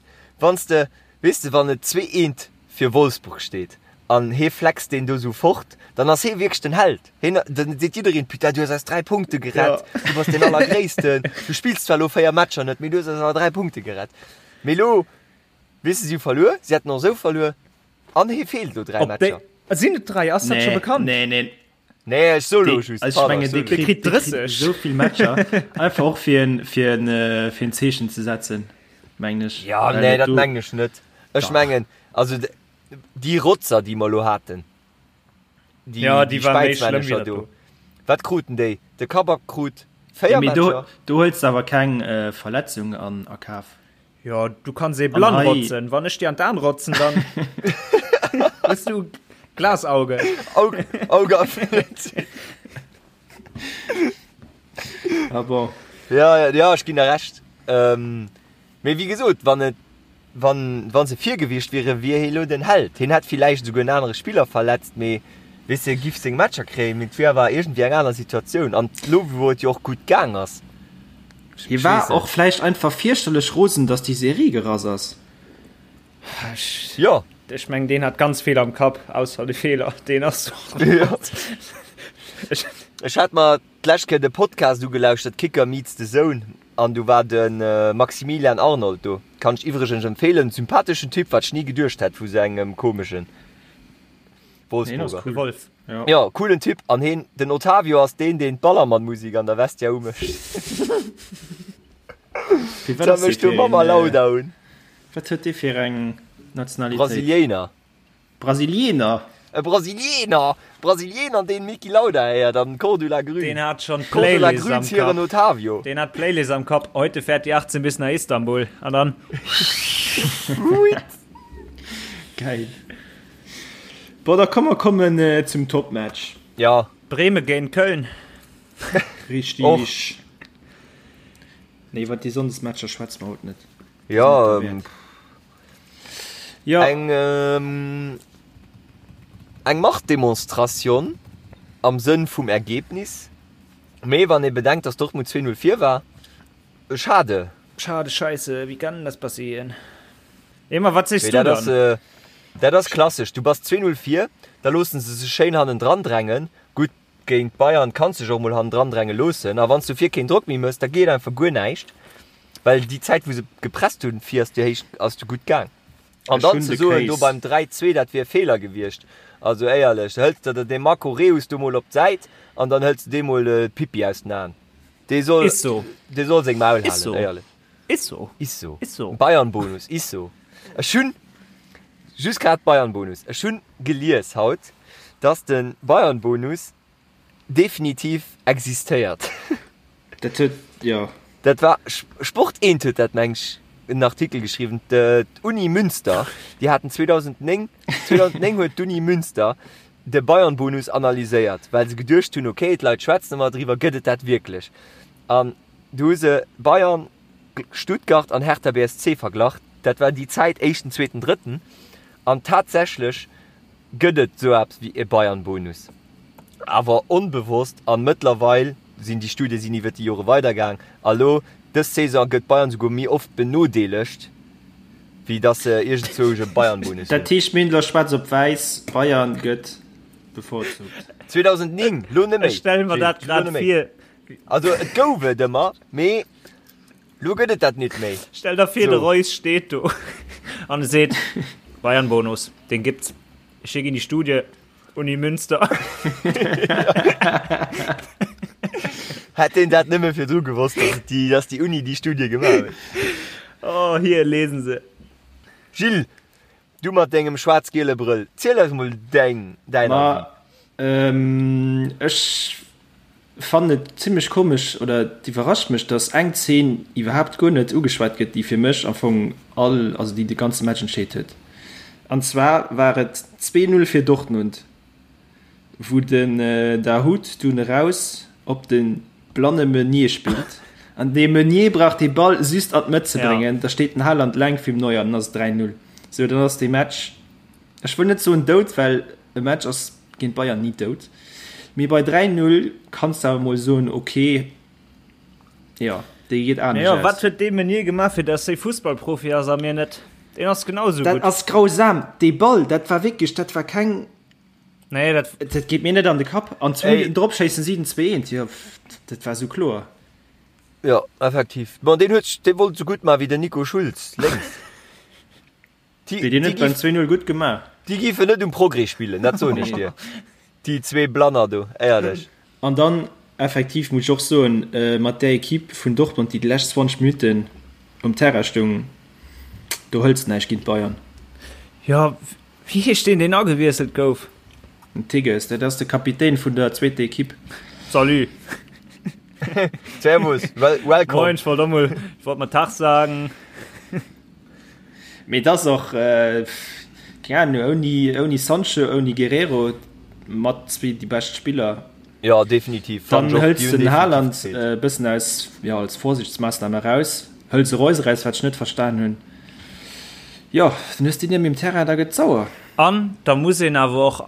Speaker 3: Wann s de, weess de, wann et 2 eent. fir Wolfsburg steet an hee flext deen do sou fort, dann ass hee wierklech den Held. Heen, dann seet jiddereen, Putain, du hues eis 3 Punkte gerett, du bass deen Allergréissten, du spills zwar elo 4 Matcher net, mee du hues eis awer 3 Punkte gerett. Mee elo, weess de, si hu verluer, si hätten och esou verluer an hee feelt elo 3
Speaker 5: Op déi,
Speaker 3: Matcher.
Speaker 5: sinn et 3? Ass dat scho
Speaker 4: Nee,
Speaker 5: bekannt?
Speaker 4: nee, nee.
Speaker 3: Nee, ech so lo just.
Speaker 4: Also, ech mengen,
Speaker 3: Pardon,
Speaker 4: dee kritt,
Speaker 5: kritt 30.
Speaker 4: esou vill Matcher. Einfach och fir en, fir en, äh, fir en Zeechen ze setzen, mengen ech.
Speaker 3: Ja,
Speaker 4: Well
Speaker 3: nee,
Speaker 4: et
Speaker 3: dat
Speaker 4: do-
Speaker 3: mengen ech net. Ech
Speaker 4: Dach.
Speaker 3: mengen, also déi Rotzer, déi mer lo haten, déi,
Speaker 5: Ja, déi
Speaker 3: déi
Speaker 5: war méi schlëmm wéi
Speaker 3: Späizmännecher
Speaker 5: dat
Speaker 3: do.
Speaker 5: do.
Speaker 3: Wat kruten déi? De Kabak krut 4
Speaker 4: Ja, mee do,
Speaker 3: Matcher.
Speaker 4: do huels de awer keng äh, Verletzung an a Kaf.
Speaker 5: Jo, du kanns ee blann
Speaker 4: hei-
Speaker 5: rotzen. Wann ech dir an d'Aan rotzen, dann hues du Glasauge.
Speaker 3: Auge, Auge erfüllt.
Speaker 4: Ah bon.
Speaker 3: Ja, ja, ja, ech ginn der Recht. Ähm, mee wéi gesot, wann et, wann, wann se vir gewiescht wieren, wier hie lo den Held. Hien hätt villäicht esouguer en anere Spiller verletzt, mee weess de, giff seng Matcher kréien. Mee et wier awer iergendwéi eng aner Situatioun. An lo, wou et jo och gutt gaang ass.
Speaker 4: Hie war och vläicht einfach fierchterlech rosen, dass déi Serie gerass ass.
Speaker 3: Jo.
Speaker 5: Ech mengen, deen hat ganz vill am Kapp, ausser de Feeler, deen ass och.
Speaker 3: Jo. Ech hat mer d'lescht Kéier de Podcast ugelauschtert, Kicker meets the Zone, an do war de Maximilian Arnold do. Kann ech iwwregens empfeelen, sympatheschen Typ, wat ech ni geduecht hätt vu sou engem komeschen Wolfsburger.
Speaker 5: De Wolf.
Speaker 4: Ja.
Speaker 3: Ja, coolen Typ. An heen, den Otavio ass deen, deen d'Ballermann-Musik an der Vestia umécht.
Speaker 4: Fir wat
Speaker 3: Da
Speaker 4: ass dee
Speaker 3: mécht du
Speaker 4: fir
Speaker 3: Mama
Speaker 4: een,
Speaker 3: Lauda un.
Speaker 4: Wat huet dee fir eng Nationalitéit?
Speaker 3: Brasiliéiner.
Speaker 4: Brasilieener?
Speaker 3: E Brasilieener! Brasilieener, deen Niki Lauda héiert an Cordula Grün.
Speaker 5: Deen hat schon
Speaker 3: Cordula
Speaker 5: d'Playlist
Speaker 3: Grün
Speaker 5: am
Speaker 3: hiren
Speaker 5: Kapp.
Speaker 3: Otavio.
Speaker 5: Deen hat d'Playlist am Kapp. Heute fährt die 18 bis nach Istanbul. An dann.
Speaker 4: Geil. Bon, da komm mer kommen zum Topmatch.
Speaker 3: Ja.
Speaker 5: Bremen géint Köln.
Speaker 4: Richtig.
Speaker 3: Och.
Speaker 4: Nee, iwwer déi Sonndesmatcher schwätze mer haut net.
Speaker 3: Ja,
Speaker 4: ja.
Speaker 3: Eng, ähm, eng Machtdemonstration am Sënn vum Ergebnis. Mee wann ee bedenkt, dass Dortmund 2-0 vir war, schade.
Speaker 5: Schade, scheisse, wie kann das passieren? Emma, wat sees
Speaker 3: Mee
Speaker 5: du
Speaker 3: dat ass,
Speaker 5: dann?
Speaker 3: äh, dat ass klassesch. Du bass 2-0 vir, da loosse se sech schéin hannendran drängen. Gutt, géint Bayern kanns de sech och mol hannendran dränge loossen. A wann s du vir keen Drock méi méchs, da geet einfach guer näischt. Well déi Zäit, wou se gepresst hunn, vir ass du héich, ass du gutt gaang. An
Speaker 4: Ech
Speaker 3: dann
Speaker 4: hunn
Speaker 3: ze
Speaker 4: de
Speaker 3: soen, do
Speaker 4: Case.
Speaker 3: beim 3-2, dat wier e Feeler gewiescht. Also éierlech, da hëls de der dee Marco Reus do mol op d'Säit an dann hëls de deem mol d'Pippi aus den Aen. Dee soll,
Speaker 5: Is so.
Speaker 3: dee soll seng Maul
Speaker 5: Is
Speaker 3: halen,
Speaker 5: so.
Speaker 3: éierlech.
Speaker 5: Is so.
Speaker 3: Is so.
Speaker 5: Is so.
Speaker 3: Bayern-Bonus, is so. Ech hunn just grad Bayern-Bonus. Ech hunn gelies haut, dass de Bayern-Bonus definitiv existéiert.
Speaker 4: Dat huet, jo.
Speaker 3: Dat war, Sport 1 huet dat, meng ech, en Artikel geschriwwen. D'Uni Münster, déi haten 2009, 2009 huet d'Uni Münster de Bayern-Bonus analyséiert, well se geduecht hunn, okay, d'Leit schwätzen ëmmer driwwer, gëtt et dat wierklech? An du hu se Bayern, Stuttgart an Hertha BSC verglach. Dat war déi Zäit, éischten, zweeten, drëtten. An tatsächlech gëtt et sou eppes wéi e Bayern-Bonus, awer onbewosst. An mëttlerweil sinn déi Studie sinn iwwert déi Jore weidergaang. A lo dës Saison gëtt Bayern souguer méi oft benodeelegt, wéi datt se iergendzwousch e Bayern-Bonus hunn.
Speaker 4: Dat heescht, mir hunn elo schwaarz op wäiss, Bayern gëtt bevorzugt.
Speaker 3: 2009, lo net méi.
Speaker 5: Ech stelle mer dat
Speaker 3: Gilles, lo
Speaker 5: grad
Speaker 3: net méi.
Speaker 5: vir.
Speaker 3: Also et gouf et ëmmer, mee lo gëtt et dat nit méi.
Speaker 5: Stell der vir, de
Speaker 3: So.
Speaker 5: Reus steet do an e seet, Bayern-Bonus, den gibt's. Ech schéck in die Studie, Uni Münster.
Speaker 3: Hätt deen dat nëmme virdru gewosst, dass et déi, dass déi Uni déi Studie gemaach huet.
Speaker 5: Oh, hier, lesen Se.
Speaker 3: Gilles, du mat dengem schwaarz-giele Brëll, ziel eis mol däin, däin
Speaker 4: Ma,
Speaker 3: Avis.
Speaker 4: ähm, ech fannen et zimlech komesch, oder et iwwerrascht mech, dass eng Zeen iwwerhaapt guer net ugeschwat gëtt, déi fir mech am Fong all, also déi de ganze Match entscheet huet. An zwar war et 2, 0 fir Dortmund, wou den Dahoud dunn eraus op de blanne Meunier spillt an dee Meunier brauch dee Ball just an d'Mëtt ze bréngen, da steet den Haaland leng virum Neuer an dann ass et 3, 0. Sou, dann ass dee Match, Ech wëll net soen dout, well e Match ass géint Bayern ni dout, mee bei 3, 0 kanns de awer mol soen, ok, jo, déi geet anescht
Speaker 5: Jo, wat
Speaker 4: aus.
Speaker 5: huet dee Meunier gemaach, fir dass hie Fussballprofi ass a mir net? Deen ass genau esou
Speaker 4: Dat
Speaker 5: gutt.
Speaker 4: ass grausam. Dee Ball, dat war wierklech, dat war keng.
Speaker 5: Nee, dat.
Speaker 4: Dat geet mir net an de Kapp. An zwou
Speaker 3: Ey.
Speaker 4: Minutten drop schéissen si den 2-1. Jo, dat war esou kloer.
Speaker 3: Jo, effektiv. Bon, deen huet, dee wollt esou gutt maachen wéi den Nico Schulz, lénks.
Speaker 4: Déi deen huet beim 2-0 gutt gemaach.
Speaker 3: Déi giffen net um Progrès spillen, dat soen ech dir. Déi zwee Blanner do, éierlech.
Speaker 4: An dann effektiv muss ech och soen, mat där Equipe vun Dortmund, déi déi lescht 20 Minutten um Terrain stoung, do hëls de näischt géint d'Bayern.
Speaker 5: Jo, wéi heescht deen, deen agewiesselt gouf?
Speaker 4: Den Tigges, dat ass de Kapitän vun der zweeter Equipe.
Speaker 5: Salut!
Speaker 3: Servus, welcome.
Speaker 5: Moin, ech wollt och mol, ech wollt mol Tag sagen.
Speaker 4: Mee et ass och, keng Ahnung, ouni, ouni Sancho, ouni Guerrero, mat zwee déi bescht Spiller.
Speaker 3: Jo, definitiv.
Speaker 4: Dann hëls de den Haaland e bëssen aus, jo, als Vorsichtsmaassnam eraus, hëls e Reus eraus, wat ech net verstan hunn. Jo, dann hues de déi net méi um Terrain, da gëtt et sauer.
Speaker 5: An da muss een awer och,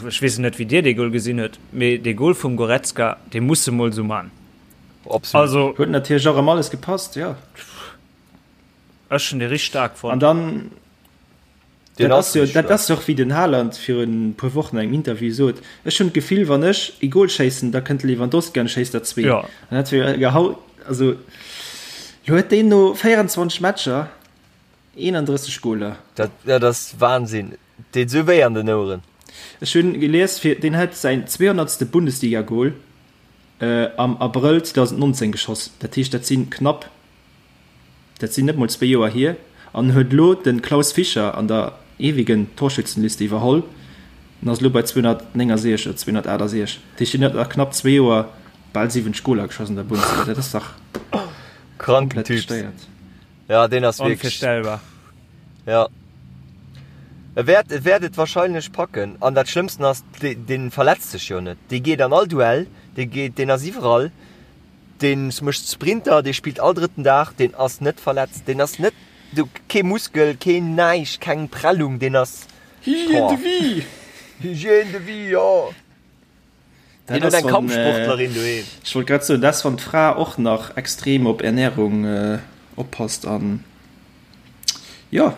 Speaker 5: ech weess net wéi Dir dee Goal gesinn hutt, mee dee Goal vum Goretzka, dee muss e mol esou man.
Speaker 3: Absolut.
Speaker 5: Also.
Speaker 4: Huet natierlech och ëm alles gepasst, jo.
Speaker 5: Ech hun dee richteg staark fonnt.
Speaker 4: An dann, dat ass jo, dat ass jo och wéi den Haaland virun e puer Wochen an engem Interview sot, ech hunn d'Gefill wann ech ee Goal schéissen, da kënnt de Lewandowski an schéisst der zwee.
Speaker 5: Jo.
Speaker 4: An dat wier gehau, also lo huet deen no 24 Matcher 31 Goaler.
Speaker 3: Dat, dat ass Wahnsinn, deet esou wéi an den Oueren.
Speaker 4: Ech hunn gelies, fir deen huet säin 200. Bundesliga-Goal am Abrëll 2019 geschoss, dat heescht dat sinn knapp Dat sinn net mol zwéi Joer hier, an huet elo de Klaus Fischer an der ewigen Torschützenliste iwwerholl an ass elo bei 269 oder 268. Dat heescht, hien huet a knapp zwee Joer bal 70 Goler geschoss an der Bundesliga. Dat ass dach
Speaker 3: Kranken
Speaker 4: komplett
Speaker 3: Typ.
Speaker 4: gestéiert.
Speaker 3: Ja, deen ass wierklech.
Speaker 5: Onvirstellbar.
Speaker 3: Ja. E wäert, e wäert et wahrscheinlech packen. An dat Schlëmmsten ass, dee, dee verletzt sech jo net. Dee geet an all Duell, dee geet, deen ass iwwerall. Deen mécht Sprinter, dee spillt all drëtten Dag, deen ass net verletzt, deen ass net, do kee Muskel, keen näischt, keng Prellung, deen ass,
Speaker 4: Hygiène de vie!
Speaker 3: Hygiène de vie, jo!
Speaker 4: Dat
Speaker 3: Deen huet
Speaker 4: ass
Speaker 3: eng
Speaker 4: wann,
Speaker 3: Kampfsportlerin doheem.
Speaker 4: Ech wollt grad soen, dat ass wann d'Fra och nach extrem op Ernährung oppasst an jo,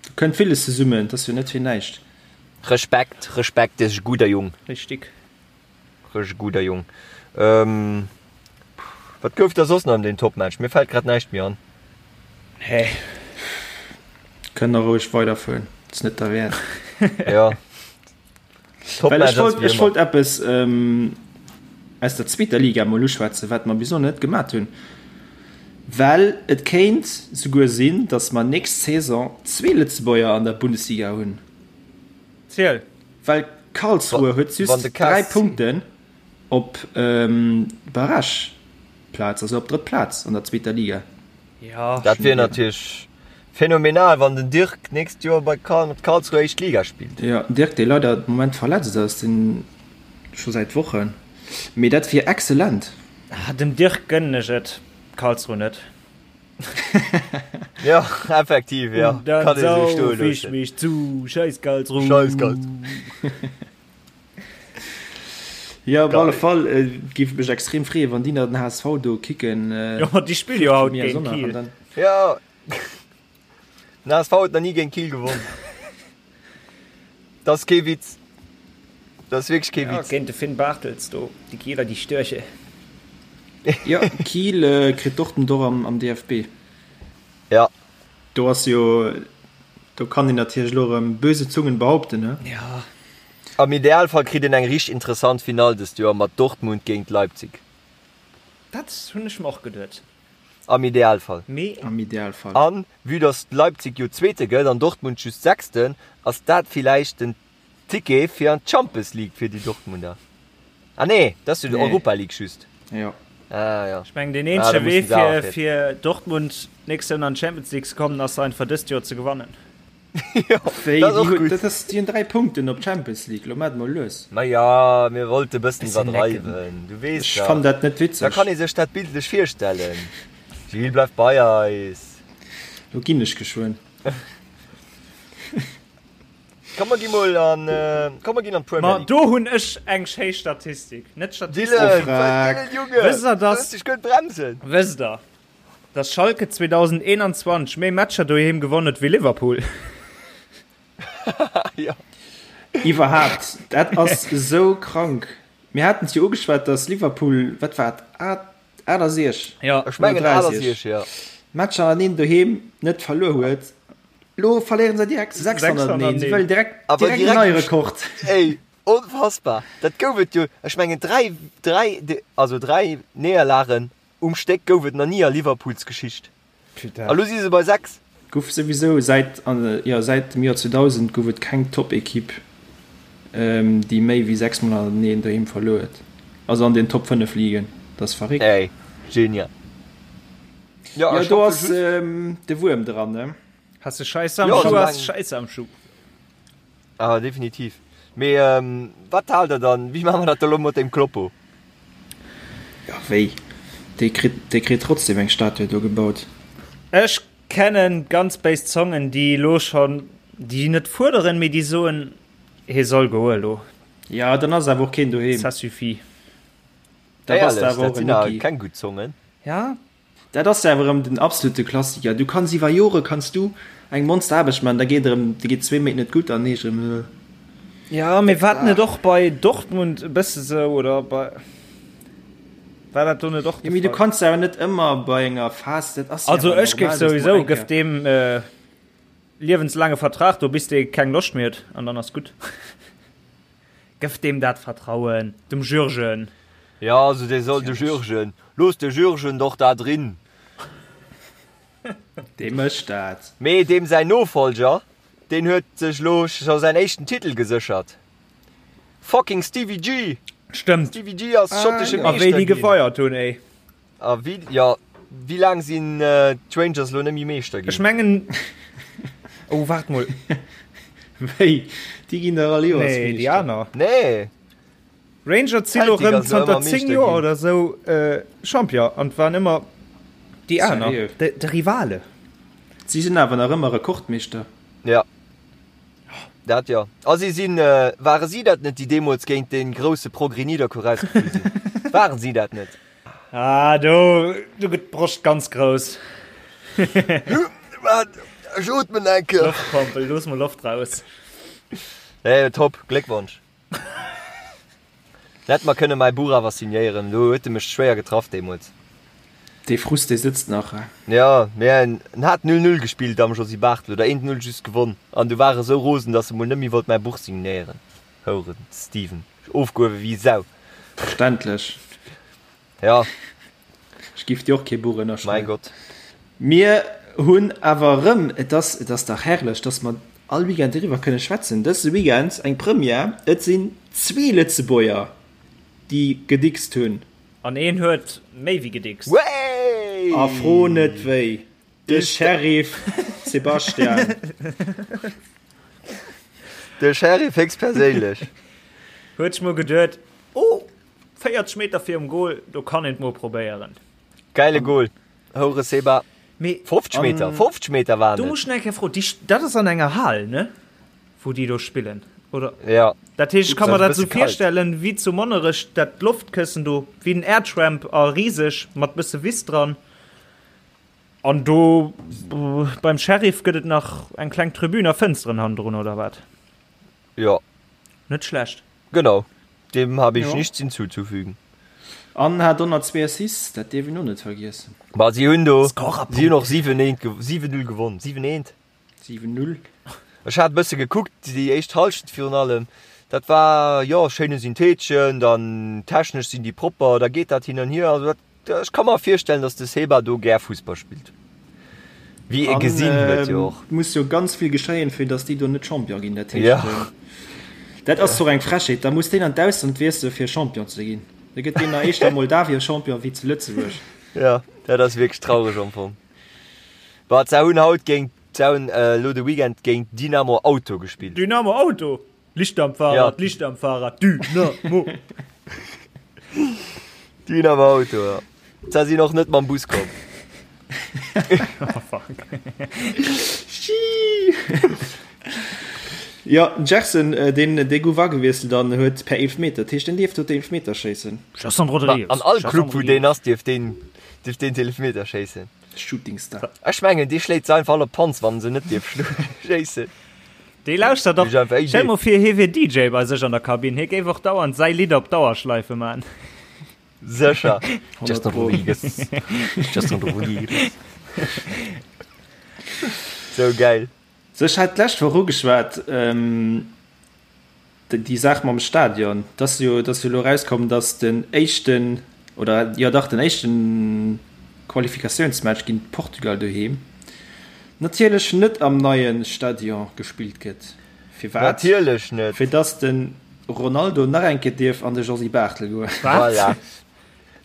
Speaker 4: do kënnt villes zesummen, dat ass jo net fir näischt.
Speaker 3: Respekt, Respekt, dee ass e gudder Jong.
Speaker 5: Richtig.
Speaker 3: Rech e gudder Jong. Ähm, wat gouf da soss nach an deem Topmatch? Mir fält grad näischt méi an.
Speaker 5: Nee.
Speaker 4: Kënnt der roueg weiderfueren, ass net derwäert.
Speaker 3: Ja.
Speaker 4: Well ech
Speaker 3: Topmatch ass
Speaker 4: wollt,
Speaker 3: wéi
Speaker 4: ech
Speaker 3: ëmmer.
Speaker 4: wollt eppes ähm, aus der zweeter Liga mol uschwätzen, wat mer bis elo net gemat hunn. Well et kéint souguer sinn, datt mer nächst Saison zwee Lëtzebuerger an der Bundesliga hunn.
Speaker 5: Ziel.
Speaker 4: Well Karlsruhe huet just 3 Punkten op d'Barrageplaz, also op d'drëtt Plaz an der zweeter Liga.
Speaker 3: Dat wier natierlech phänomenal, wann den Dirk d'nächst Joer bei Karlsruhe éischt Liga spillt.
Speaker 4: Jo, den Dirk, dee leider de Moment verletzt ass, deen scho säit Wochen, mee dat wier excellent.
Speaker 5: Dem Dirk gënnen ech et, Karlsruhe net.
Speaker 3: Ja, effektiv, ja.
Speaker 5: Und dann
Speaker 3: Kann ee sou stoe
Speaker 5: sauf ich
Speaker 3: loossen.
Speaker 5: mich zu, scheiß Karlsruhe.
Speaker 3: Scheiß Karlsruhe.
Speaker 4: Ja, op
Speaker 3: Geil.
Speaker 4: alle Fall äh, géif et mech extrem freeën, wann déi nach den HSV do kicken. Äh,
Speaker 5: Ja, ma déi spille jo haut
Speaker 4: mir
Speaker 5: géint
Speaker 4: Sonntag an
Speaker 5: Kiel.
Speaker 4: dann-
Speaker 3: Ja. Den HSV huet nach ni géint Kiel gewonnen. Dat ass kee Witz. Dat ass wierklech kee
Speaker 5: Ja,
Speaker 3: Witz.
Speaker 5: géint de Finn Bartels do, déi Kieler, déi Störche.
Speaker 4: Ja, Kiel äh, kritt Dortmund och am, am DFB.
Speaker 3: Ja.
Speaker 4: Do ass jo, do kann een natierlech elo erëm böse Zungen behaupten, ne?
Speaker 5: Ja.
Speaker 3: Am Idealfall kritt een eng richteg interessant Finall dëst Joer mat Dortmund géint Leipzig.
Speaker 5: Dat hunn ech mer och geduet.
Speaker 3: Am Idealfall.
Speaker 5: Mee.
Speaker 4: Am Idealfall.
Speaker 3: An vue dass Leipzig jo Zweete gëtt an Dortmund just Sechsten, ass dat villäicht den Ticket fir an d'Champions League fir déi Dortmunder. Ah nee, dat ass jo d'Europa League just.
Speaker 4: Jo.
Speaker 3: Ah jo.
Speaker 5: Ech mengen deen
Speaker 3: Ah, da
Speaker 5: eenzege Wee
Speaker 3: mussen se awer
Speaker 5: fir
Speaker 3: fir.
Speaker 5: fir Dortmund d'nächst Saison an d'Champions League ze kommen ass einfach dëst Joer ze gewannen.
Speaker 3: Jo,
Speaker 4: Wéi,
Speaker 3: dat ass
Speaker 4: déi
Speaker 3: och
Speaker 4: hunn,
Speaker 3: gutt.
Speaker 4: dat ass, déi hunn 3 Punkten op d'Champions League, lo maacht mol lues.
Speaker 3: Ma ja, mir wollte bëssen
Speaker 5: Bisschen necken.
Speaker 3: iwwerdreiwen, du weess
Speaker 4: Ech
Speaker 3: dach.
Speaker 4: fannen dat net
Speaker 3: Da
Speaker 4: witzeg.
Speaker 3: kann ee sech dat bildlech virstellen. Gilles, bleif bei eis.
Speaker 4: Lo ginn ech geschwënn.
Speaker 3: Komm mer gi mol an, komm mer ginn an d'Premier
Speaker 5: Ma
Speaker 3: League.
Speaker 5: do hunn ech eng schéi Statistik, net Statistik.
Speaker 3: Dylan,
Speaker 4: Frag.
Speaker 3: Dylan, Junge,
Speaker 5: Wësst der,
Speaker 3: du
Speaker 5: dass,
Speaker 3: hues dech gutt bremsen.
Speaker 5: wësst der. Dass Schalke 2021 méi Matcher doheem gewonn huet wéi Liverpool.
Speaker 3: Jo.
Speaker 4: Iwwerhaapt, dat ass esou krank. Mir haten et jo ugeschwat, dass Liverpool, wat war et, 68
Speaker 5: Ja.
Speaker 3: Ech mengen 68, ja.
Speaker 4: Matcher hannereen doheem net verluer huet. Lo verléieren se direkt 6 hannerteneen. Si wëllen direkt,
Speaker 3: Awer
Speaker 4: direkt en
Speaker 3: direkt
Speaker 4: neie Rekord.
Speaker 3: Ey, onfassbar. Dat gouf et jo, ech mengen 3, 3, also 3 Néierlagen um Stéck gouf et nach ni a Liverpools Geschicht.
Speaker 5: Putain.
Speaker 3: A lo si se bei 6.
Speaker 4: Gouf souwisou säit, jo, säit dem Joer 2000 gouf et keng Top-Ekipp, déi méi wéi 6 mol hannerteneen doheem verluer huet. Also an den Top 5 Ligen. Dat ass verréckt.
Speaker 3: Ey, genial.
Speaker 4: Jo, jo, do ass de Wuerm dran, ne?
Speaker 5: Has de Scheiss am
Speaker 3: Jo,
Speaker 5: Schuh, has
Speaker 3: soulaang.
Speaker 5: de Scheiss am Schuh.
Speaker 3: Ah, definitiv. Mee wat haalt der dann, wéi maache mer dat da lo mat deem Kloppo?
Speaker 4: Jo, wéi? Dee kritt, dee kritt trotzdem eng Statue do gebaut.
Speaker 5: Ech kennen ganz béis Zongen, déi elo schonn, déi net fuerderen, mee déi soen, hie soll goe elo.
Speaker 4: Jo, dann ass awer och keen doheem.
Speaker 5: Ça suffit.
Speaker 4: Da bass de
Speaker 3: Éierlech,
Speaker 4: awer
Speaker 3: dat
Speaker 4: och en
Speaker 3: sinn awer
Speaker 4: Mucki.
Speaker 3: keng gutt Zongen.
Speaker 5: Ja.
Speaker 4: Dat ass awer erëm den absolute Klassiker. Du kanns iwwer Jore kanns du eng Monsteraarbecht maachen, da geet erëm, da geet zwee Méint net gutt an heescht erëm, äh.
Speaker 5: Ja, mee war dat net och bei Dortmund e bësse sou, oder bei, war dat do net och de
Speaker 4: Jo, mee du
Speaker 5: Fall?
Speaker 4: kanns awer net ëmmer bei enger Phas, dat ass jo
Speaker 5: Also
Speaker 4: awer
Speaker 5: ech géif
Speaker 4: normal, dass du
Speaker 5: souwisou,
Speaker 4: eng
Speaker 5: gëff
Speaker 4: Kéier.
Speaker 5: deem liewenslaange Vertrag do, bis dee keng Loscht méi huet an dann ass gutt. Gëff deem dat Vertrauen, dem Jürgen.
Speaker 3: Ja, also dee soll de Jürgen, looss de Jürgen doch da drin.
Speaker 4: Dee mécht dat.
Speaker 3: Mee deem säin Nofolger, deen huet sech lo scho säin éischten Titel geséchert. Fucking Stevie G!
Speaker 5: Stëmmt.
Speaker 3: Stevie G ass schottesche
Speaker 5: A wéi
Speaker 3: Meeschter
Speaker 5: déi
Speaker 3: ginn.
Speaker 5: gefeiert hunn, ey.
Speaker 3: A wéi, jo, wéi laang sinn d'Rangers elo net méi Meeschter
Speaker 5: Ech
Speaker 3: ginn?
Speaker 5: mengen, oh waart mol.
Speaker 4: Wéi? Déi ginn dach all Joers
Speaker 5: Nee, déi
Speaker 4: Meeschter.
Speaker 5: aner.
Speaker 3: Nee.
Speaker 5: Rangers si lo
Speaker 3: Celtic
Speaker 5: rëm
Speaker 3: ass elo
Speaker 5: zanter
Speaker 3: ëmmer
Speaker 5: 10
Speaker 3: Meeschter
Speaker 5: Joer
Speaker 3: ginn.
Speaker 5: oder sou Champion an et waren ëmmer déi aner,
Speaker 4: Seriö?
Speaker 5: de, de Rivale.
Speaker 4: Si sinn awer nach ëmmer Rekordmeeschter.
Speaker 3: Ja. Dat jo. A si sinn, ware si dat net, déi deemools géint dee grousse Progrès Nidderkuer rausgeflu sinn? Waren si dat net?
Speaker 5: Ah, do, do gëtt d'Broscht ganz grouss.
Speaker 3: Wat? Ech ootmen eng Kéier.
Speaker 5: Loftpompel, looss mol Loft raus.
Speaker 3: Nee, top, Gléckwonsch. Hätt mer kënne mäi Buch awer signéieren, do huet e mech schwéier getraff deemools.
Speaker 4: Dee Frust, dee sëtzt nach, he?
Speaker 3: Jo, mee en hat 0, 0 gespillt am Josy Barthel oder 1, 0 just gewonn an du war e sou rosen, dass e mol net méi wollt mäi Buch signéieren. Houren Steven, ofgehuewe wéi Sau.
Speaker 4: Verständlech.
Speaker 3: Jo.
Speaker 4: Ech giff dir och kee Buch
Speaker 3: Mäi
Speaker 4: ënnerschreiwen.
Speaker 3: Gott.
Speaker 4: Mir hunn awer erëm, et ass, et ass dach herrlech, dass mer all Weekend doriwwer kënne schwätzen, dëse Weekend eng Première, et sinn zwee Lëtzebuerger, déi gedickst hunn.
Speaker 5: An een huet méi wéi gedickst.
Speaker 3: Wéi!
Speaker 4: A fro net wéi, de Sheriff Sebastian.
Speaker 3: De Sheriff héchstperséinlech.
Speaker 5: Huet sech mol geduet, Oh, 40 Meter virum Goal, do kann een et mol probéieren.
Speaker 3: Gäile Goal. Houre Seba.
Speaker 5: Mee
Speaker 3: 50 Meter, 50 Meter waren
Speaker 5: do
Speaker 3: et.
Speaker 5: muss ech nach eng Kéier froen, déi, dat ass an enger Hal, ne? Wou déi do spillen, oder?
Speaker 3: Ja.
Speaker 5: Dat heescht, ech ka mer
Speaker 3: Ass e
Speaker 5: dat sou
Speaker 3: bësse kalt.
Speaker 5: virstellen, wéi zu Monnerech, dat Loftkëssen do, wéi den Airtramp a riseg, mat bësse Wiss dran. An do beim Sheriff gëtt et nach eng kleng Tribün a Fënsteren hannendrun, oder wat?
Speaker 3: Jo.
Speaker 5: Net schlecht.
Speaker 3: Genau, dem habe ich
Speaker 4: Jo.
Speaker 3: nichts hinzuzufügen.
Speaker 4: An hat 102 Assists, dat dierf een och net vergiessen.
Speaker 3: Ma si hunn do,
Speaker 5: Scorerpunkte.
Speaker 3: si hunn och 7 eent, 7 0 gewonn, 7 eent.
Speaker 4: 7 0.
Speaker 3: Ech hat e bësse gekuckt, déi éischt Hallschent virun allem, dat war, jo, schéine Syntheetchen, dann technesch sinn déi propper, da geet dat hin an hier, also dat Ech ka mer virstellen, dass de Seba do gär Fussball spillt. Wéi ee gesinn huet jo och.
Speaker 4: Et muss jo ganz vill geschéien, fir dass déi do net Champion ginn. Dat heescht,
Speaker 3: Ja.
Speaker 4: dat ass doch eng Frechheet. Da muss deen an d'Ausland wiessele fir Champion ze ginn. Da gëtt deen nach éischter a Moldawien Champion wéi zu Lëtzebuerg.
Speaker 3: Ja, dat ass wierklech traureg am Fong. Bah, se hunn haut géint, se hunn elo de Weekend géint Dynamo Auto gespillt.
Speaker 5: Dynamo Auto? Licht am Fahrrad,
Speaker 3: Ja.
Speaker 5: Licht am Fahrrad, Dynamo!
Speaker 3: Dynamo Auto, ja. Se sinn och net mam Bus komm.
Speaker 5: Oh fuck.
Speaker 4: Jo, den Gerson, deen, dee gouf agewiesselt an huet per Eelfmeter, dat heescht, deen dierft do d'Eelfmeter schéissen.
Speaker 5: Gerson Rodrigues.
Speaker 3: An all
Speaker 5: Gerson
Speaker 3: Club, wou deen
Speaker 5: Rodrigues.
Speaker 3: ass, dierf deen, dierf deen d'Eelfmeter schéissen.
Speaker 4: Shooting Star.
Speaker 3: Ech mengen dee schléit se einfach all op d'Panz wann en se net dierf schéissen.
Speaker 5: Dee lauschtert och, stell mol vir hie wier DJ bei sech an der Kabinn, hie géif och dauernd säi Lidd op Dauerschleife man.
Speaker 3: Sécher. Justin Rodriguez. Justin Rodriguez. Sou geil.
Speaker 4: Sou, ech hat d'lescht Woch ugeschwat, déi Saach mam Stadion. Et ass jo, et ass jo elo erauskomm, datt den éischten, oder jo dach, den éischten Qualifikatiounsmatch géint Portugal doheem natierlech net am neie Stadion gespillt gëtt. Firwat?
Speaker 3: Natierlech net.
Speaker 4: Fir datt de Ronaldo nach eng Kéier dierf an de Josy Barthel goen.
Speaker 3: Voilà.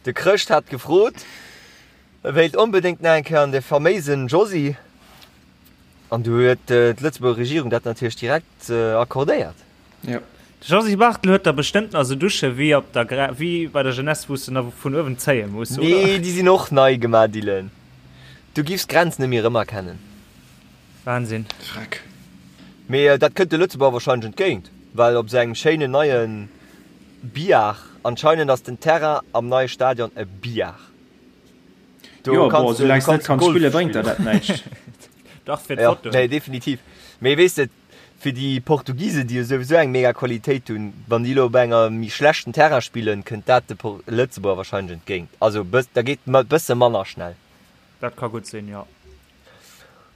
Speaker 3: De Chrëscht hat gefrot, e wéilt onbedéngt nach eng Kéier an de faméisen Josy. An du huet d'Lëtzebuerger Regierung dat natierlech direkt accordéiert.
Speaker 4: Jo.
Speaker 5: De Josy Barthel huet der bestëmmt nach esou Dusche wéi op der Gra wéi bei der Jeunesse wou s de nach vun uewen zéie muss,
Speaker 3: oder? Nee, déi sinn och nei gemaach, Dylan. Du giffs d'Grenz net méi erëmerkennen.
Speaker 5: Wahnsinn.
Speaker 4: Freck.
Speaker 3: Mee dat kënnt de Lëtzebuerger wahrscheinlech entgéint, well op esou engem schéinen neie Billard, anscheinend ass den Terrain am neie Stadion e Billard.
Speaker 4: Do jo, bon, soulaang s net kanns spillen, bréngt der dat näischt.
Speaker 5: Dach, fir d'Fotoen.
Speaker 3: Nee, definitiv. Mee weess de, fir déi Portugisen, déi jo souwisou eng mega Qualitéit hunn, wann déi elo op enger méi schlechten Terrain spillen, kënnt dat de Lëtzebuerger wahrscheinlech entgéint. Also da geet et bësse manner schnell.
Speaker 5: Dat ka gutt sinn, jo.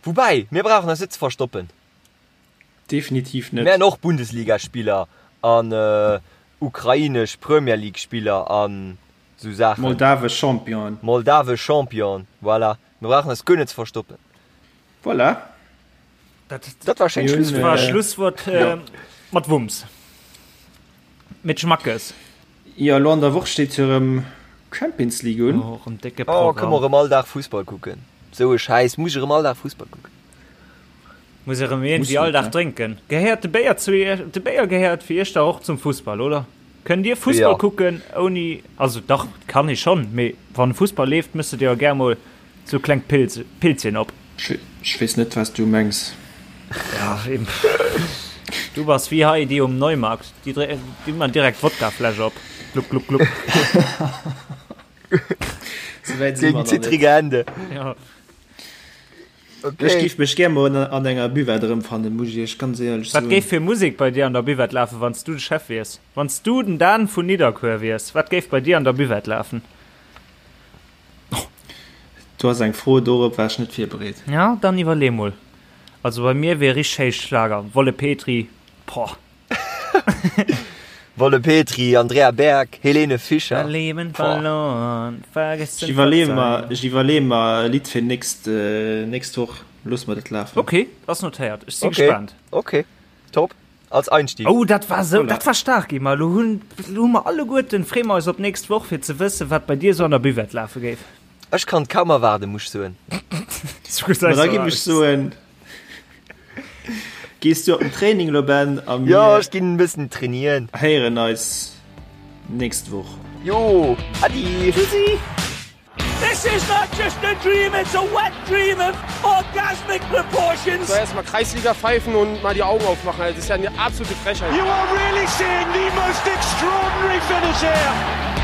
Speaker 3: Woubäi, mir brauchen eis net ze verstoppen.
Speaker 4: Definitiv net.
Speaker 3: Mir hunn och Bundesligaspiller an ukrainesch Premier League Spiller an sou Saachen.
Speaker 4: Moldawesch Championen.
Speaker 3: Moldawesch Champion, voilà. Mir brauchen eis guer net ze verstoppen.
Speaker 4: Voilà.
Speaker 5: Dat,
Speaker 3: dat war schéin
Speaker 5: Schlusswuert. War Schlusswuert äh, mat Wumms. Mit Schmackes.
Speaker 4: Jo, elo an der Woch steet jo erëm Champions League un.
Speaker 5: Oh, erëm décke
Speaker 3: Programm. Oh, kënne mer erëm all Dag Fussball kucken. Sou e Schäiss, muss ech erëm all Dag Fussball kucken.
Speaker 5: Muss erëm iergendwéi all Dag drénken. Gehéiert de Béier zu Iech? De Béier gehéiert fir Iech dach och zum Fussball, oder? Kënnt Dir Fussball kucken ouni, also dach, kann ee schonn, mee wann Fussball leeft, mëss de dir jo gär mol sou klengt Pils, Pilzchen op.
Speaker 4: Ech weess net, wat s du mengs.
Speaker 5: Ja, eben. Du bass wéi hei déi um Neumarkt, déi dréi, déi man direkt d'Wodkafläsch op. Gluck, gluck, gluck.
Speaker 4: Souwäit si mer
Speaker 3: Gegen
Speaker 4: nach net.
Speaker 3: zittrige Hände.
Speaker 5: Ja.
Speaker 3: Okay.
Speaker 4: Ech géif mech gär mol an enger Buvette erëmfannen, muss ech iech ganz éierlech
Speaker 5: Wat
Speaker 4: soen.
Speaker 5: géif fir Musek bei dir an der Buvette lafen, wann s du de Chef wiers? Wann s du den Dan vun Nidderkuer wiers, wat géif bei dir an der Buvette lafen?
Speaker 4: Do ass eng Fro, dorop war ech net virbereet.
Speaker 5: Ja, dann iwwerlee mol. Also bei mir wier richteg héich Schlager, Wolle Petry, boah.
Speaker 3: Wolle Petry, Andrea Berg, Helene Fischer.
Speaker 5: Mein Leben
Speaker 3: Boah.
Speaker 5: verloren, vergessen,
Speaker 4: Ech iwwerleeë mer,
Speaker 5: verzeihen.
Speaker 4: ech iwwerleeë mer e Lidd fir nächst, nächst Woch. Loosse mer dat lafen.
Speaker 5: Ok, ass notéiert. Ech si
Speaker 3: Ok,
Speaker 5: gespaant.
Speaker 3: ok, top. Als Einstieg.
Speaker 5: Oh, dat war sou,
Speaker 4: Voilà.
Speaker 5: dat war staark, Emma. Lo hunn, lo hu mer alleguerten, freeë mer eis op d'nächst Woch, fir ze wëssen, wat bei dir sou an der Buvette lafe géif.
Speaker 3: Ech kann et kaum erwaarden, muss ech soen.
Speaker 5: Sou gesäis
Speaker 4: Ma da
Speaker 5: du
Speaker 4: giff ech
Speaker 5: aus.
Speaker 4: soen, Gees du op den Training lo Ben a
Speaker 3: Jo,
Speaker 4: mir
Speaker 3: ech ginn e bëssen trainieren.
Speaker 4: héieren eis nächst Woch.
Speaker 3: Jo, Adi.
Speaker 5: Tschüssi.
Speaker 1: This is not just a dream, it's a wet dream of orgasmic proportions.
Speaker 2: So erstmal Kreisliga pfeifen und mal die Augen aufmachen. Das ist ja eine absolute Frechheit.
Speaker 1: You are really seeing the most extraordinary finish here.